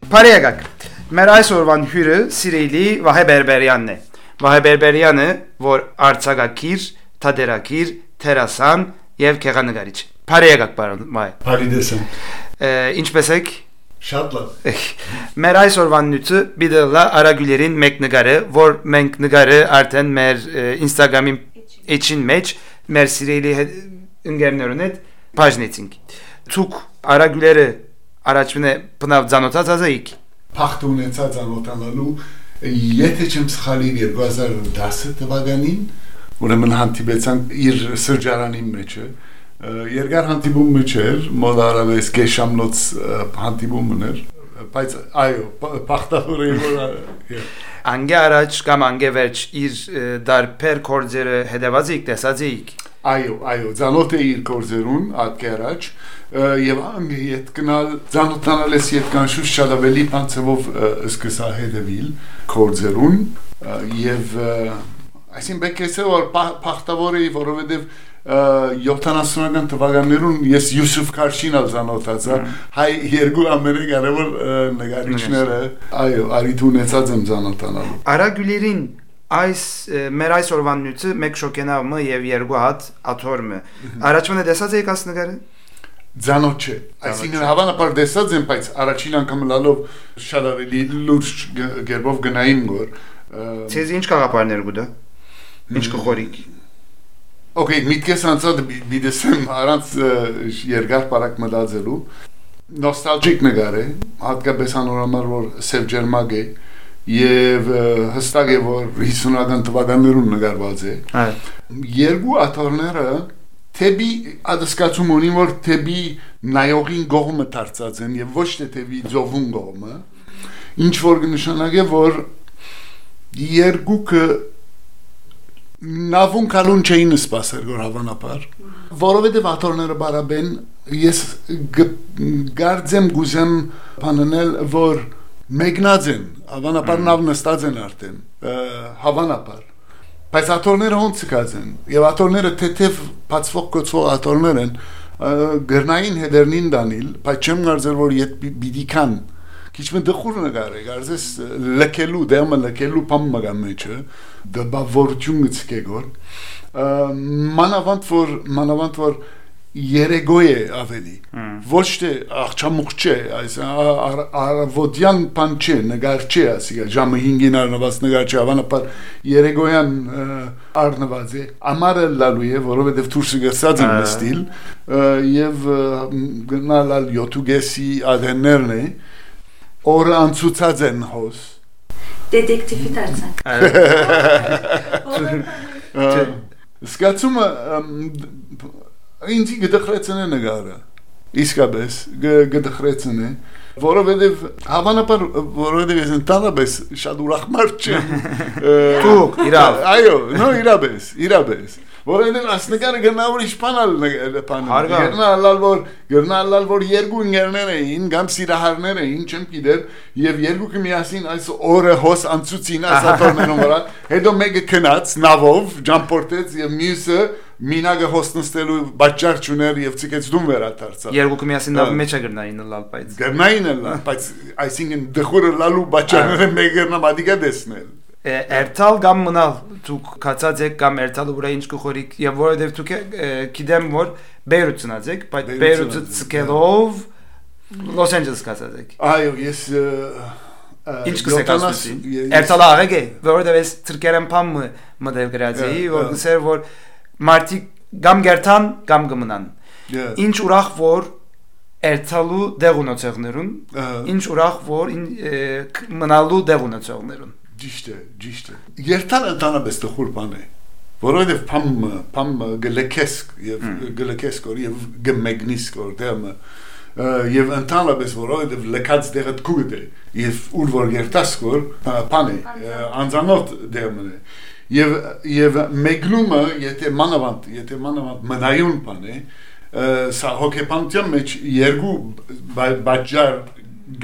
Բարեկակ, մեր այսօրվան հյուրը սիրելի Վահե Բերբերյանն է։ Վահե Բերբերյանը, որ արձակագիր, թատերագիր, դերասան եւ գեղանկարիչ։ Բարեկակ, պարոն Վահե։ Բարի դեսն։ Ինչպե՞ս եք։ Շատ լավ։ Մեր այսօրվան նյութը բիդելա արագուլերին մեկ նկարը, որ մենք նկարը արդեն մեր Instagram-ի էջին մեջ մեր սիրելի ընկերներուն հետ բաժնեցինք։ Ցուկ արագուլերը առաջինը բնավ ցանոթած ազայիք։ Փախտ ունեցած ցանոթանալու եթե չեմ սխալիր 2010 թվականին ուրեմն հանդիպեցանք իր սրճարանի մեջը երկար հանդիպում չէր մոդարավես գեշամնոց հանդիպումն էր բայց այո փախտավոր էր անգե առաջ կամ անգե վերջ իր դարբեր կորձերը հետևած եք տեսած եք այո ցանոթ է իր կորձերուն ատկե առաջ եւ անգե իդ գնալ ցանոթանալես իդ կանշուշ շատ ավելի բանցով սկսա հետևիլ կորձերուն եւ այսին բեկեսը որ փախտավոր է որովհետեւ 70-ական թվականներուն ես Յուսուֆ Քարշինալ ցանոթացա հայ երկու ամերիկարևոր նկարիչները այո արիթ ունեցած եմ ցանոթանալու արագուլերին այս մեր այսօրվան նյութը մեկ շոկենավը եւ երկու հատ աթորմը առաջինը տեսած եք աս նկարը ցանոթ չէ այսինքն հավանաբար տեսած եմ բայց առաջին անգամ լալով շատ ավելի լուրջ գերբով գնային որ ցեզ ինչ կաղապարներ գուտա ինչ կխորիկ Okay, միտքես անցած բիդեսեմ առանց երկար բարակ մտածելու նոստալգիկ նկար է հատկապես անորոշ որ սև ջերմակ է եւ հստակ է որ 50-ական թվականներուն նկարված է երկու աթորները թեբի ադսկացում ունի որ թեբի նայողին գողմը դարձած են եւ ոչ թե թեբի ծովուն գողմը ինչ որ նշանակե որ երկուքը նավուն կալուն չէին սպասել որ հավանաբար որովհետև աթորները բարաբեն ես գարձեմ գուզեմ բանանել որ մեկնած են հավանաբար նավն նստած են արդեն հավանաբար բայց աթորները ոնց կած են եւ աթորները թեթև բացվող կոչվող աթորներ են գրնային հետերնին դանիլ բայց չեմ կարծել որ իդ բիդիկան Քիչմե դխուր նկար է, կարծես լքելու, դերմը լքելու բամ մգամ մեջը, դբավորություն գցկեգոր, մանավանդ որ երեգոյ է ավելի, ոչ թե աղջամուղ չէ, այս արվոդյան պան չէ, նգար չէ, ասիկա, ժամը 5-ին արնված նգար չէ, ավանապար երեգոյան արնված է, ամարը լալու է, որովհետև թուրսը գրսած են նստիլ, և գնալալ յոտուգեսի ադեններն է, Օրը անցուցած են հոս Դետեկտիվի դարձանք Սկացումը ինձի գդխրեցն է նգարը իսկապես գդխրեցն է որովհետև հավանաբար որովհետև ես ընդհանրապես շատ ուրախ մարդ չեմ Դուք իրավ այո նո իրաբես որովհետև ասնկարը գնավոր իշխանալ գնալալ որ երկու ընկերներ էին կամ սիրահարներ էին չեմ գիտեր եւ երկուքը միասին այս օրը հոս անցուցին ասատորներում վրա հետո մեկը քնած նավով ջամպորտեց եւ մյուսը մինագը հոստնստելու բաճար չուներ եւ ցիկեց դում վերադարձավ երկուքը միասին նավի մեջ գտնային լալ բայց այսինքն դխուրը լալու բաճարները մեկը նամադիկա դեսնել Երթալ կամ մնալ դուք կացած եք կամ երթալը վրա ինչ կխորիկ եւ որովհետեւ դուք գիտեմ որ Բեյրութ ծնած եք բայց Բեյրութը ցկելով Լոս Անջելես կացած եք այո ես ինչ կսեք ասում երթալը աղեկ է որովհետեւ ես ցրկերեմ փամ մտել գրածի որ գսեր որ մարտի կամ գերտան կամ գմնան ինչ ուրախ որ երթալու դեղ ունեցողներուն ինչ ուրախ որ մնալու դեղ ունեցողներուն Ճիշտ է Երթալը ընդհանրապես տխուր բան է որովհետև փամ գլեկես կոր եւ գմեգնիս կոր դեմը եւ ընդհանրապես որովհետև լքած դեղը քուգ է եւ ուր որ երթաս կոր բան է անձանոտ դեմն է եւ մեգլումը եթե մանավանդ մնայուն բան է սա հոգեբանության մեջ երկու բաժար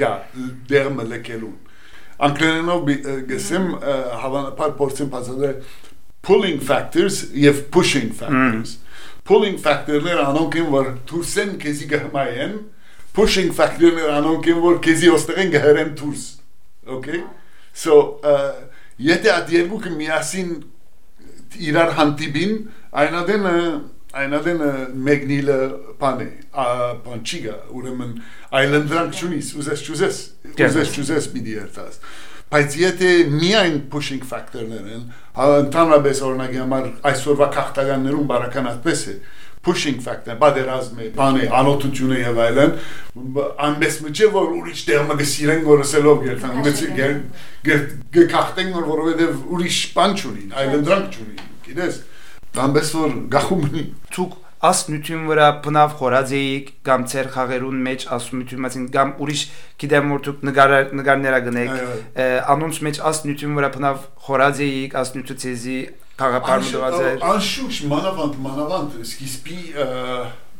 գա դերմը լքելուն Անգլերենով գսեմ հավանաբար փորձեմ բացատրել pulling factors եւ pushing factors pulling factor-ները անոնք են որ դուրսեն քեզի գհմայեն pushing factor-ներ անոնք են որ քեզի ոստեղեն գհրեն դուրս okay so եթե այդ երկուքը միասին իրար հանդիպին այնադեն մեկնիլը բանը բանչիգա ուրեմն այլանդրանք չունիս ուզես պիտի երթաս բայց եթե միայն pushing factor-ներ են ընդհանրապես օրինակի համար այսօրվա քաղաքականներում բարական այդպես է pushing factor բادرազմը բանը անօթությունը եւ այլն անպես մջը որ ուրիշ դերմը գսիրեն գորսելով գերտան գքախտեն որովհետեւ ուրիշ բան չունին այլանդրանք չունին գիտես անպես որ գախումնի ցուկ ասնություն վրա բնավ խորածեիք կամ ծեր խաղերուն մեջ ասնություն մասին կամ ուրիշ գիտեմ որ դուք նկարները գնեք անոնց մեջ ասնություն վրա բնավ խորածեիք ասնությունը ցեզի Քաղաքապարմուդվածեր Անշուշ մանավանդ սկիզբի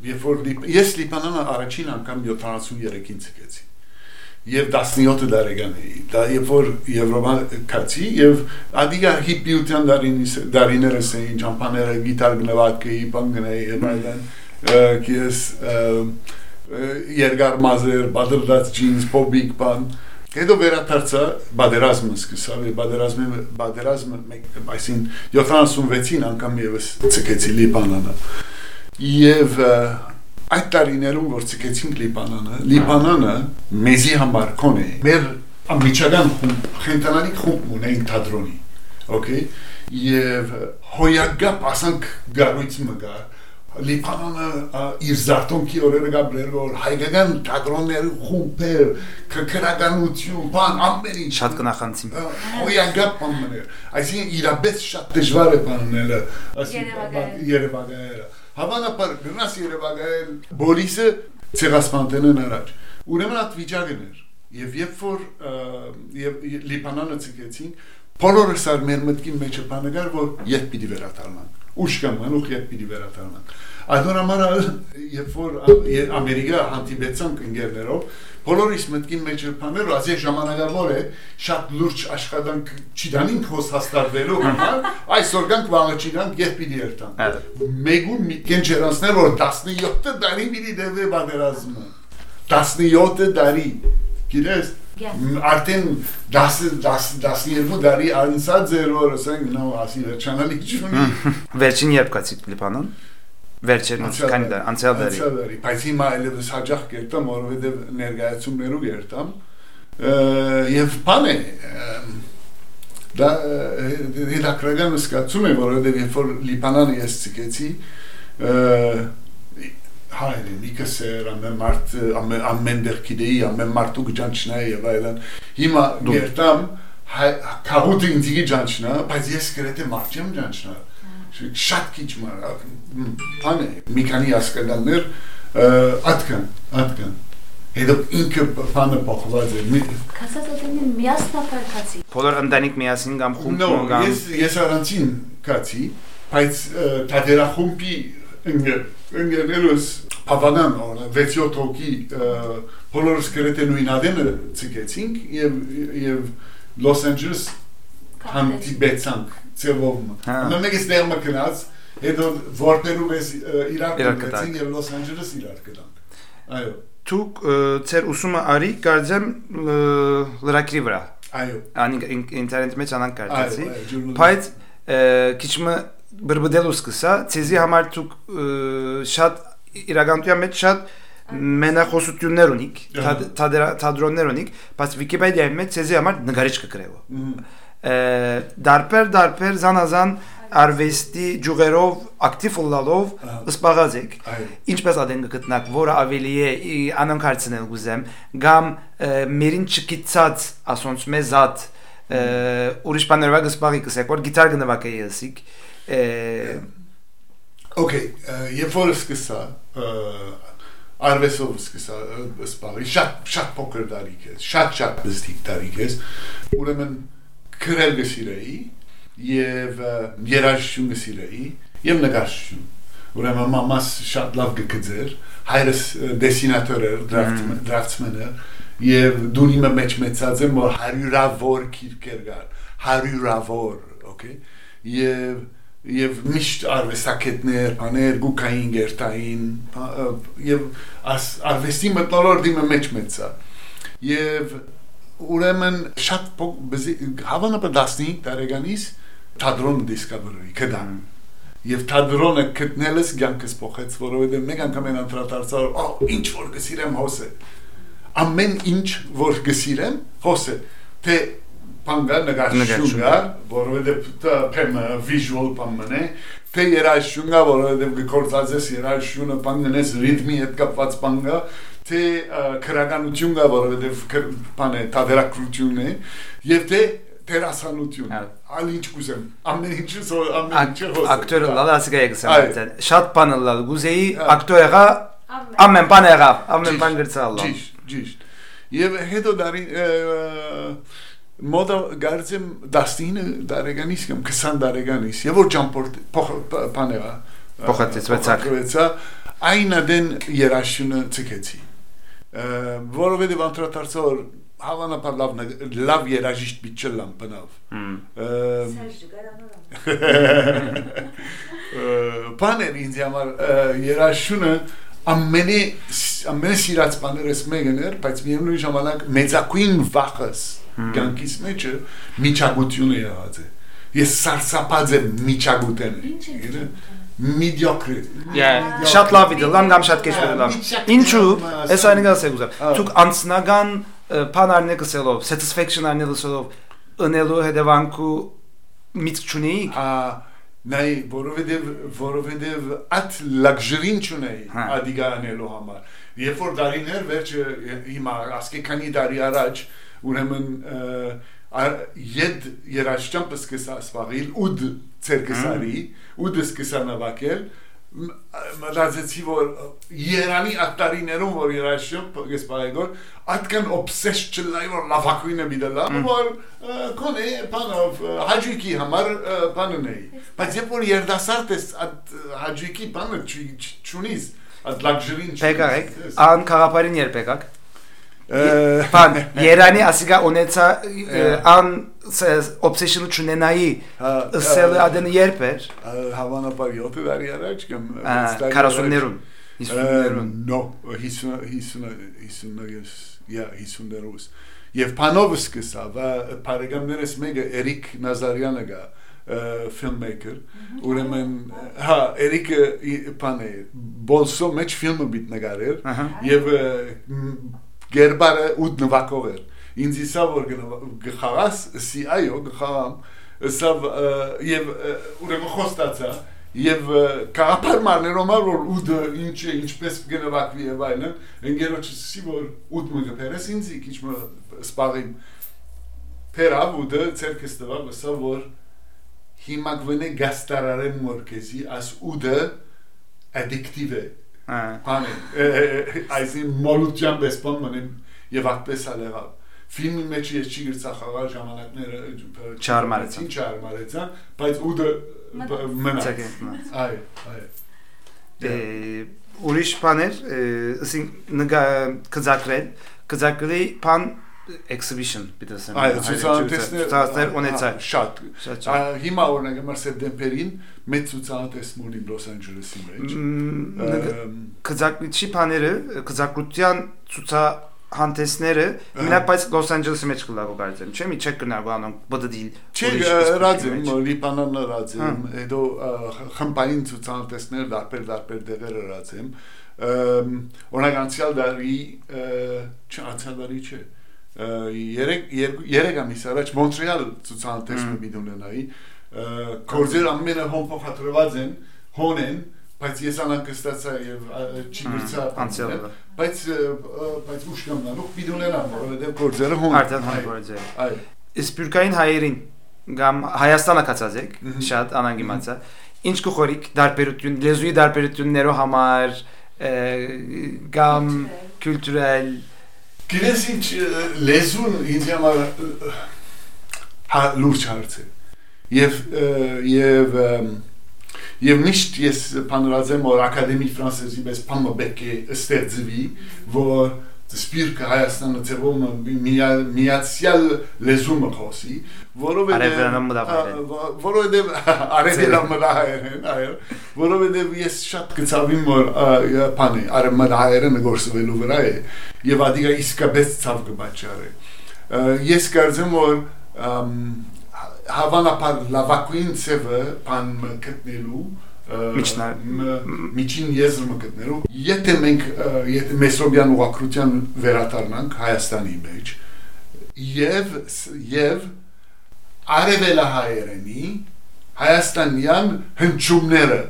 երբ որ ես Լիբանանը առաջին անգամ 73-ին ցկեցի եւ 17 տարեկան էի դա երբ որ Եվրոպա կացի եւ ադիգա հիպիության դարիներս էին ճամփաները գիտար գնվածքեի բանգնեի եւ այլն քիես երկար մազեր բادرդած ջինս փոբիկ բան Հետո վերադարձա բادرազմը սկսավ բادرազմը այսին 76-ին անգամ եւս ցկեցի Լիբանանը եւ այդ տարիներում որ ցկեցինք Լիբանանը մեզի համար կոնե մեր ամիջական խենտանալի խումբ ունենք թատրոնի okay եւ հոյագապ ասանք գարույց մգա Լիբանանը իր զարտոնքի օրերը գաբրեր որ հայկական թատրոնների խումբեր քրականություն բան ամեն ինչ շատ կնախանցին հոյագապ բաններ այսինքն իրապես շատ դժվար է բանները Երևանները հավանաբար գնաս Երևան բոլիսը ցեղասպանտենն առաջ ուրեմն այդ վիճակն էր եւ երբ որ Լիբանանը ցկեցին բոլորս ար մեր մտքի մեջ բանագար որ երբ պիտի վերադառնանք ուշքան մանուխ երբ պիտի վերադառնանք Այդոնամարա երբ որ Ամերիկա հանդիպեցանք ընկերներով բոլորիս մտքին մեջ բաներ ասի ժամանակավոր է շատ լուրջ աշխատանք չդանինք հոս հաստատվելու համար այսօր գանք վաղաչիրանք երբ պիտի երթանք մեգուն միտքեն չերանցներ որ 17 տարի պիտի դեպի բادرազմը 17 տարի գիտես արդեն 12 տարի անցած էր որ ասենք նո ասի վերջանալի չունի վերջին երբ կացիք Լիբանան վերջին քանի դար անցյալ դարի բայց հիմա այլևս հաջող կերտամ որովհետև ներկայացումներով երտամ եւ բան է դա հետաքրական զգացում է որովհետև երբ որ Լիբանանը ես ցկեցի հայրը նիկսեր ամեն դեր գիտեի ամեն մարդու գճանչնայի եւ այլն հիմա երտամ քաղուտի ինձի ջանչնա բայց ես գրեթե մարդ չեմ ջանչնա շատ քիչ բան է մի քանի ասկալներ ատկան հետո ինքը բանը փոխված է Կասածատենին միասնապար կացի բոլոր ընտանիք միասին կամ խումբ կամ ես առանցին կացի բայց թատերախումբի ընկերներս Հավանան 6-7 հոգի բոլորս գրեթե նույն ադենը ցկեցինք եւ Լոս Անջելես հանդիպեցանք ծևով մեկս դերմը կնաց հետո որտերում ես իրար կգեցին եւ Լոս Անջելես իրար կդանք այո Դուք ծեր ուսումը արի կարծեմ լրակրի վրա այո ինտերնետ մեջ անանք կարծեցի բայց քիչմը բրբդելու սկսա ցեզի համար դուք շատ իրականության մեջ շատ մենախոսություններ ունիք թատրոններ ունիք բայց Վիկիպեդիայի մեջ ցեզի համար նկարիչ կգրեվո դարբեր զանազան արվեստի ջուղերով ակտիվ լալով սպառած եք ինչպես ադեն գտնակ որը ավելի է անոնք հարցնել գուզեմ կամ մերին չկիցած ասոնց մեզատ ուրիշ բաներով գսպարի կսեք որ գիտար գնվակ է եսիկ Okay, երբ որ սկսա արվեստով սկսա սպառի շատ փոքր տարիք է շատ բստիկ տարիք է ուրեմն քրել գսիրեի եւ երաժշտություն գսիրեի եւ նկարչություն ուրեմն մամաս շատ լավ գկձեր հայրս դեսինատոր էր դրաֆտսմեն եւ դունիմը մեջ մեծած եմ որ 100-ավոր քիրքեր գար 100-ավոր okay եւ եւ միշտ արվեստագետներ, բաներ, գուկային գերտային եւ արվեստի մտնոլորտի մեջ մեծա եւ ուրեմն շատ հավանաբար 15 տարեկանից թատրոն դիսկավերի կդան եւ թատրոնը գտնելս ցանկս փոխեց որովհետեւ մեկ անգամ են անդրադարձար ինչ որ գսիրեմ հոսե ամեն ինչ որ գսիրեմ հոսե թե Panga նկարչությունա, որովհետև դա visual բանը, թե երաժշտությունա, որովհետև գործածես երաժշտությունը բաննես ռիթմի հետ կապված բանը, թե քրականությունա, որովհետև բանը թատերակրություն է, եւ թե տերասանություն։ Ալ ինչ կուզեմ, ամեն ինչը ակտորը լալասիկա եկսան։ Շատ բանը լալ գուզեի ակտորը ամեն բան եղավ, ամեն բան գրծալ։ Ճիշտ։ Եւ հետո դարի Մոդը գարցեմ 19 տարեկանից կամ 20 տարեկանից եւ որ ճամփորդ բաներա փոխեցվեցա այն դեն երաշունը ցկեցի որովհետեւ անդրադարձոր հավանաբար լավ երաժիշտ բիչելամ բնավ բաներ ինձ համար երաշունը ամենի սիրած բաներս մեկն էր բայց միևնույն ժամանակ մեծակույն վախս Գանկիս մեջը միջագությունը եղած է։ Ես սարսափած եմ միջագութեն։ Mediocre։ Շատ լավ է, լավ կամ շատ քեշ լավ։ Ինչու՞, այս այնինը ասել ուզեմ։ Դուք անցնական բանարներ կսելով, satisfaction անելսով ընելու հետևանքու միտք չունեիք։ Նայ որովհետև at luxury-ին չունեի ադիգանելու համար։ Երբ որ դարիներ վերջը հիմա ասկե քանի տարի առաջ ուրեմն յեդ երաշտամը սկսա սպաղիլ ուդ ցերկսարի ուդ սկսա նավակել մտածեցի որ Երանի ատարիներում որ երաշտամ գսպայգոր atkan obsessed չլայ որ լավակույնը միտելա որ կոնե բանով հաջիկի համար բանն է բայց երբ որ երդասարտ ես հաջիկի բանը չունիս at luxury-ին Պեկակ ան խաղապարին երբ եկակ Pan, Երանի ասիգա ունեցա ան obsession-ը չունենայի ըսելը adını երբ էր հավանաբար 7 տարի առաջ կամ 40-ներուն 50-ներուն No 50-ներուս Եվ Փանովը սկսա và բարեկամներս մեկը Էրիկ Նազարյանը գա filmmaker ուրեմն հա Էրիկը բան է բոլսո մեջ ֆիլմը բիտ նկարել եւ Գերբարը ուդ նվակով էր ինձ իսա որ գխարաս սի այո գխարամ սա եւ ուրեմն խոստացա եւ կարապար մարներոմար որ ուդը ինչպես գնվակվի եւ այլն ընկերոջս սի որ ուդ մը գերես ինձ քիչ մը սպաղիմ Պերավ ուդը ցերկս տվավ սա որ հիմա գվնե գաստարարեմ մորքեզի աս ուդը addictive է Pane, այսին մոլուտյան բեսպան մնեմ եւ այդպես ալեղավ ֆիլմի մեջ ես չի գրծախաղալ ժամանակները չարմարեցան բայց ուդը մնաց ուրիշ բաներ ասին կզակրել բան exhibition բիտասեմ ցուցահանդեսներ ունեցա շատ հիմա օրինակ մար սեպտեմբերին մեծ ցուցահանդեսներ ունի Լոս Անջելեսի մեջ կզակրիչի բաները կզակրության ցուցահանդեսները մենակ բայց Լոս Անջելեսի մեջ կլավո կարծեմ չէ՞ մի չեք գնալ բանոն բդդիլ չէ ռադիմ լիբանան ռադիմ հետո խմբային ցուցահանդեսներ դարբեր դեղեր ռադիմ օրինակ անցյալ դարի չէ երեք ամիս առաջ Մոնտրեալ ցուցահանդեսը միտունենայի կորձեր ամենը հոմփոխադրված են հոն են բայց ես անկստացա եւ չի գրծա բայց ուշքամնանուք միտունենան որովհետեւ կորձերը հոն այո իսպյուրկային հայերին գամ Հայաստանը կացած եք շատ անանգիմացա ինչ կխորիկ դարբերություն լեզուի դարբերություններով համար գամ կուլտուրալ Գիտես ինչ լեզուն ինձ համար լուրջ հարց է եւ միշտ ես բանրազեմ որ ակադեմիկ ֆրանսեզի պես բանը պետք է ստեղծվի որ Սպիրկը Հայաստանը ծևում միացյալ լեզումը խոսի, որովհետև արևելամտահայերեն, որովհետև ես շատ կցավիմ որ բանի արևմտահայերենը գործվելու վրա է եւ ադիգա իսկապես ցավ կբաճարի։ Ես կարծեմ որ հավանաբար լավագույն ծևը բան գտնելու միջին եզրը գտնելու եթե մենք մեսրոբյան ուղղակրության վերադառնանք Հայաստանի մեջ եւ արևելահայերենի հայաստանյան հնչյունները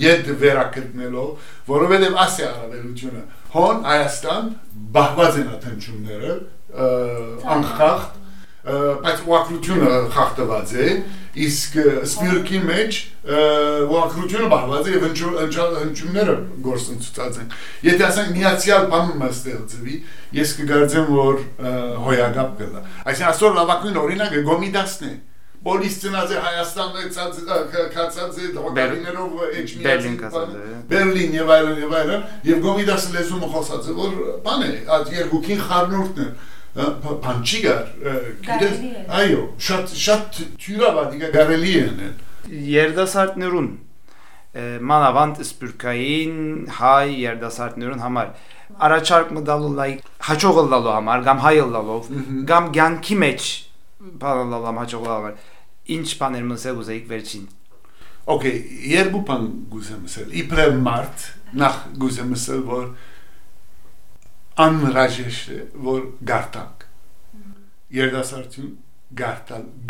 ետ վերակտնելով որովհետեւ ասի արևելությունը հոն Հայաստան բաղված են հնչյունները անխախտ բայց ուղղակրությունը խախտված է իսկ սպիրկի մեջ ուղղակրությունը բաղված է եւ հնչյունները գործընթացած են եթե ասենք միացյալ բանը ստեղծվի ես կգարձեմ որ հոյագապ կլա այսինքն այսօր լավագույն օրինակը Գոմիդասն է Բոլիս ծնած է Հայաստանում կացած է դոկտորիներով Բերլին եւ այլն եւ Գոմիդասը լեզումը խոսած է որ բան է այդ երկուքին խառնուրդն է Փանչիգար այո շատ թյուրավադիկա գարելի են երդասարտներուն մանավանդ սպյուրքային հայ երդասարտներուն համար առաջարկ մտալու լայք հաջողը լալու համար կամ հայը լալով կամ ցանկի մեջ բանալամ հաջողը համար ինչ բաներ մսել ուզեիք վերջին Okay երկու բան գուզեմ ասել իբրև մարդ նախ գուզեմ ասել որ անհրաժեշտ է որ գարտանք երդասարտություն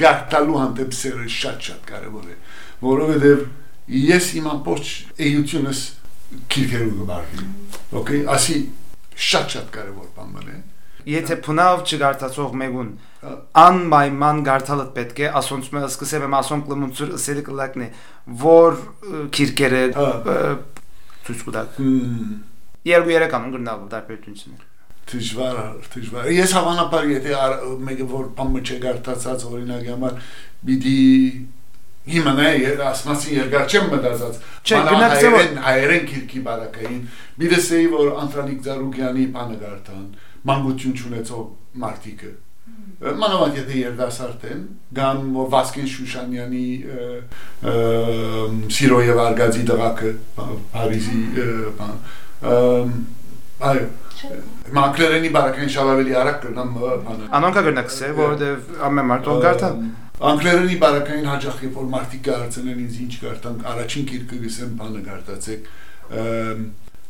գարտալու հանդեպ սերը շատ կարևոր է որովհետև ես իմ ամբողջ էությունս քիրքերու գբարվի okay ասի շատ կարևոր բան է եթե փնավ չգարտացող մեկուն անպայման գարտալդ պետք է ասոնց մը սկսեմ եմ ասոն կլմունցուր սերի կլակն է որ քիրքերը ցույց կտակ Երկու երեքան գրնալու դարբերություններ Դժվար ես հավանաբար եթե մեկը որ բանը չգարտացած օրինակ համար պիտի հիմա ասմասի երկար չեմ մտածած հայերեն քիրքի բարակային բիդեսեի որ Անտրանիկ Զարուգյանի բանը գարտան մանկություն չունեցող մարդիկը մանավանդ եթե երդասարտ են կամ Վասկեն Շուշանյանի Սիրո եւ Արգազի դղակը Փարիզի այո Մանկլերենի բարակային շավավելի արակ կրնամ բանը Անոնքա գրնակս է որովհետև ամեն մարդով գարտան Անկլերենի բարակային հաջախ երբ որ մարդիկ կարծեն ինձ ինչ գարտանք առաջին գիրքը գսեմ բանը գարտացեք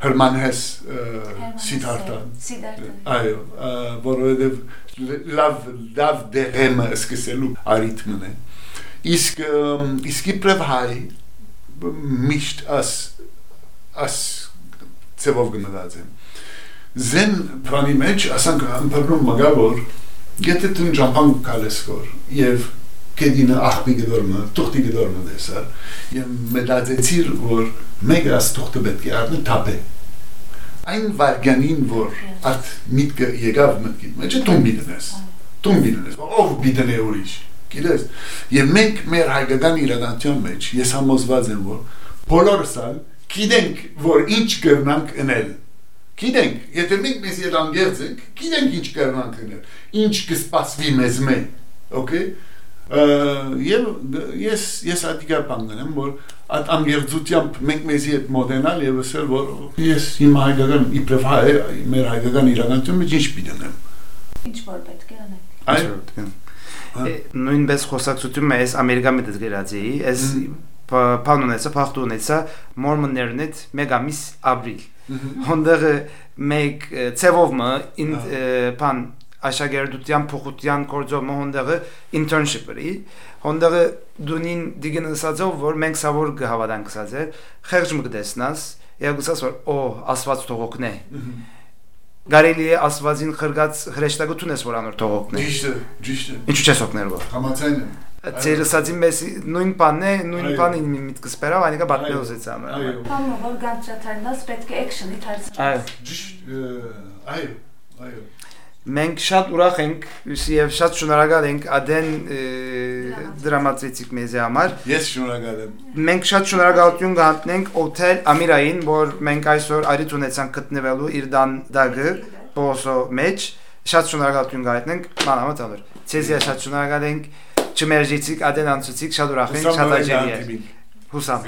Հրմանհես Սիդհարտան այո որովհետև լավ դեղեմը սկսելու արիթմն է իսկ իբրև հայ միշտ աս ծևով գնացեմ Զեն բանի մեջ ասանք ամբարնում մգավոր եթե դու ճամփան կալեսկոր եւ կեդինը ախպի գդորմը թուղթի գդորմը դեսա եւ մտածեցիր որ մեկը աս թուղթը պետք է առնի թափե այն վարգանին որ at միտքը եկավ մտքի մեջ տուն ով բիդնե ուրիշ գիտես եւ մենք մեր հայկական իրականության մեջ ես համոզված եմ որ բոլորս գիտենք որ ինչ կրնանք անել Գիտենք, եթե մենք մեզ երանգերձ ենք, գիտենք ինչ կրնանք անել, ինչ կսպասվի մեզ մեն, okay? Եվ ես ատիկա պանգնեմ, որ այդ անգերձությամբ մենք մեզի հետ մոդենալ և ասել, որ ես իմ հայկական, իպրև հայ, մեր հայկական իրականություն մեջ ինչ պիտենեմ։ Ինչ որ պետք է անել։ Նույնպես խոսակցություն ես Ամերիկա մետ գրած էի, ես բան ունեցա, փախտ ունեցա, մորմոններն հետ մեկ ամիս ապրիլ։ Հոնդեղ մեկ ծևովը բան աշակերտության փոխության կորձով հոնդեղը internship-ը հոնդեղը դունին դիգնասածով որ մենք սավոր գհավադանք սածեր խեղճ մկդեսնաս եգուսաս որ ասված թողոքն է Գարելի է ասվածին խրգած հրեշտակություն ես որ անոր թողոքն է Ճիշտ է Ինչու չես օգներ որ Համաձայն եմ Ծերսածին մեզ նույն բանն է, նույն բանին միտքս բերավ, այնիկա բատնելուց էց ամ։ Բանը որ գանչաթարնաս պետք է էքշնի թարցնի։ Այո։ Մենք շատ ուրախ ենք եւ շատ շնորհակալ ենք Ադեն դրամատրեցիկ մեզ համար։ Ես շնորհակալ եմ։ Մենք շատ շնորհակալություն կհանձնենք Օթել Ամիրային, որ մենք այսօր արիթ ունեցանք գտնվելու իր դագը բոսո մեջ շատ շնորհակալություն գայտնենք մանավանդ ալր ցեզիա շատ շնորհակալ ենք չմերժիցիկ ադենանցուցիկ շատ ուրախ ենք շատ աջելի է հուսամ